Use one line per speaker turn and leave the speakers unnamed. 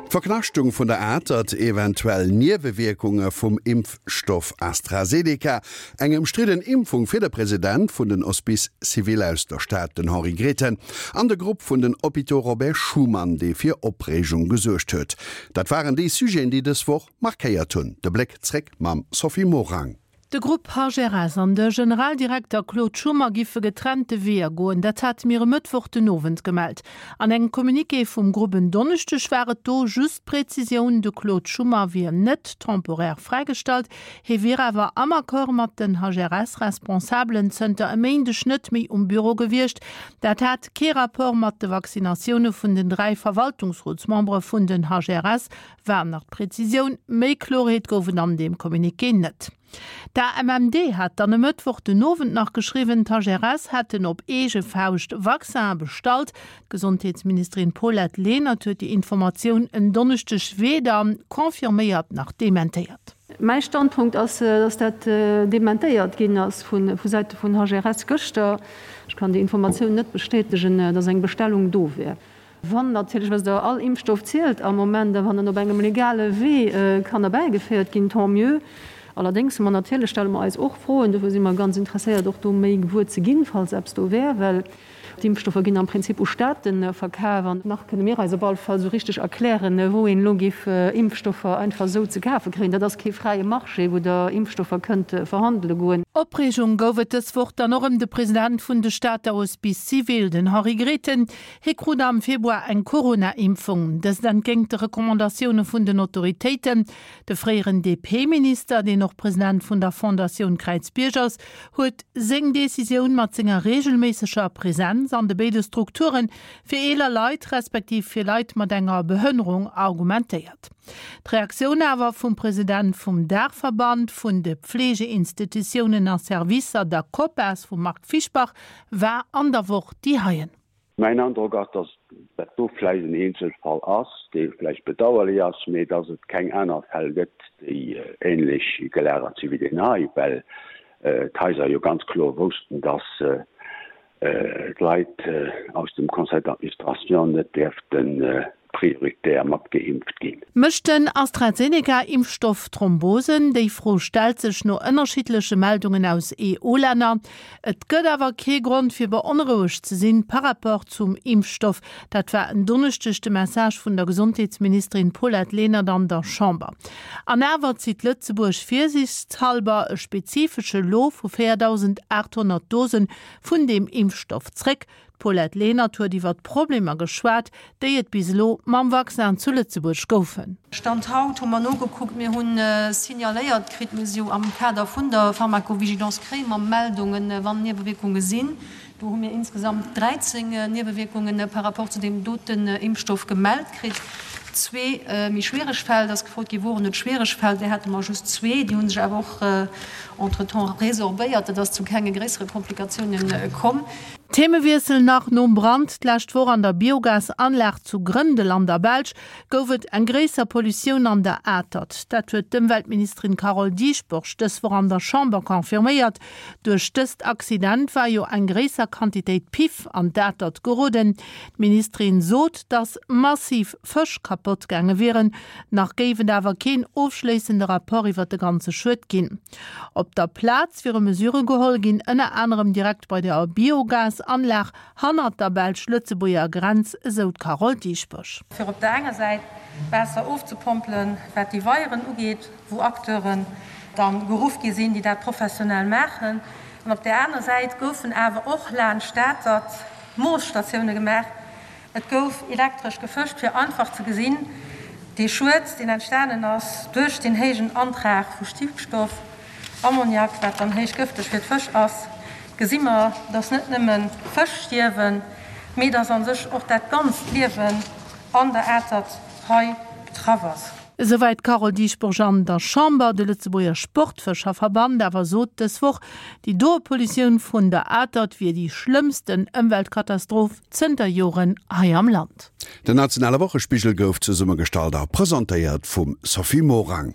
D'Verknaschtung vun der Atert, eventuell Niewewierkunge vum Impfstoff AstraZeneca, eng ëmstridden Impfung fir de President vun den Hospices civils aus der Stad, den Henri Grethen, an de Grupp vun den Hôpitaux Robert Schuman, dee fir Opreegung gesuergt huet, dat waren déi Sujeten, déi dës Woch markéiert hunn. De Bléck zréck mam Sophie Morang.
De Grupp HRS an de Generaldirekter Claude Schummer giffe getrennte Weeër goen. Dat hate mir e Mëttwoch den Owend gemellt. An engem Communiqué vum Grupp en Donneschdeg war et do just d'Präzisioun, de Claude Schummer wier net temporaire fräigestallt, hie wier awer am Accord mat den HRS-Responsabelen zënter e Méindeg net méi um Büro gewiescht. Dat hat kee Rapport mat de Vaccinatioune vun den 3 Verwaltungsrotsmembere vun den HRS, War nach d'Präzisioun, méi Klorheet gouf et an deem Communiqué net. D'AMMD hat dann e Mëttwoch den Owend nach geschriwwen, d'HRS hätten op eege Fauscht Vaccinen bestallt. D'Gesondheetsministerin Paulette Lenert huet déi Informatioun en Donneschdeg weder confirméiert nach dementéiert.
Mäi Standpunkt ass, dass dat dementéiert ginn ass vu Säite vun HRS gëschter. Ech kann déi Informatioun net bestätegen, dass eng Bestellung do wär. Wann natierlech, wësst Der, all Impfstoff zielt am Moment, a wann en op engem legale Wee kann erbäigeféiert ginn, tant mieux. Allerdéngs hu mer natierlech, stelle mer eis och Froen, dofir si mer ganz interesséiert och do méi gewuer ze ginn, falls eppes do wär, well d'Impfstoffer ginn am Prinzip u Staate verkaf an nach kënne mir eis op alle Fall esou richteg erklären, wou een elo géif Impfstoffer einfach esou ze kafe kréien. Dat ass kee fräie Marché, wou Der Impfstoffer kënnt verhandele goen.
Opreegung gouf et dës Woch dann och ëm de President vun de Stater Hospices civils, den Henri Grethen. Hie krut am Februar eng Corona-Impfung, dëst entgéint de Recommandatioune vun den Autoritéiten. De fréieren DP-Minister, deen och President vun der Fondatioun Kräizbierg ass, huet seng Decisioun mat senger reegelméisseger Presenz an de béide Strukture fir eeler Leit respektiv fir Leit mat enger Behënnerung argumentéiert. D'Reaktioun awer vum President vum Daachverband vun de Pfleegeinstitutiounen a Servicer, der COPAS, vum Marc Fischbach, war an der Woch déi heien.
Mäin Androck ass, datt dat do vläicht en Eenzelfall ass, dee vläicht bedauerlech ass, mee datt et keng aner Fäll gëtt, déi ähnlech gelagert si wéi deen hei, well d'Haiser jo ganz kloer woussten, datt d'Leit aus dem Conseil d'administration net däerften prioritär mat geimpft ginn.
Mécht den AstraZeneca-Impfstoff Thrombosen? Déi Fro stellt sech no ënnerschiddleche Meldungen aus EU-Länner. Et gëtt awer kee Grond fir beonrouegt ze sinn par rapport zum Impfstoff. Dat war en Donneschdeg de Message vun der Gesondheetsministerin Paulette Lenert an der Chamber. An awer zitt Lëtzebuerg virsiichtshallber e spezifesche Lot vu 4.800 Dose vun deem Impfstoff zréck. D'Paulette Lenert huet iwwer d'Problemer geschwat, déi et bis elo mam Vaccin zu Lëtzebuerg goufen.
Stand haut hu mer nogekuckt, mir hu signaléiert kritt, mir si jo am Kader vun der Pharmacovigilance kréie mer Meldungen, wann Niewewierkunge sinn. Do hu mir insgesamt 13 Niewewierkunge par rapport zu deem doten Impfstoff gemellt kritt. Zwee méi schwiereg Fäll, et ass gefrot gi woren et schwiereg Fäll, där hate mer just zwee, déi hu sech awer och entretemps resorbéiert, et ass zu kenge gréissere Komplikatiounen komm.
Themewiessel nach, Nom Brand d'lescht Woch an der Biogasanlag zu Grëndel an der Belsch gouf et eng gréisser Pollutioun an der Atert. Dat huet d'Ëmweltministerin Carole Dieschbourg dës Woch an der Chamber confirméiert. Duerch dëst Accident war jo eng gréisser Quantitéit Piff an d'Atert geroden. D'Ministerin sot, datt massiv Fësch kapott gaange wieren. Nach géif et awer keen ofschléissende Rapport iwwer de ganze Schued ginn. Op der Plaz wiere Mesure geholl ginn, ënner anerem direkt bei der Biogasanlag hannert der belsch-lëtzebuerger Grenz, esou d'Carole Dieschbourg.
Fir op der enger Säit Waasser ofzepompelen, wat déi Weieren ugeet, wou Acteuren da geruff gi sinn, déi dat professionell maachen, an op där aner Säit goufen awer och laanscht d'Atert Moosstatioune gemaach, Et gouf elektresch gefëscht, fir einfach ze gesinn, dee Schued, deen entstanen ass duerch deen héijen Antrag vu Stickstoff, Ammoniak, wat dann héich gëfteg fir d'Fësch ass, gesi mer, dass net nëmmen d'Fësch stierwen, mee dass a sech och dat ganzt Liewen an der Atert hei betraff ass.
Esouwäit d'Carole Dieschbourg an der Chamber. De Lëtzebuerger Sportfëscherverband awer sot dës Woch, déi doe Pollutioun vun der Atert wier déi schlëmmsten Ëmweltkatastroph zënter Joren hei am Land.
Den nationale Wochespigel gouf zesummegestallt a presentéiert vum Sophie Morang.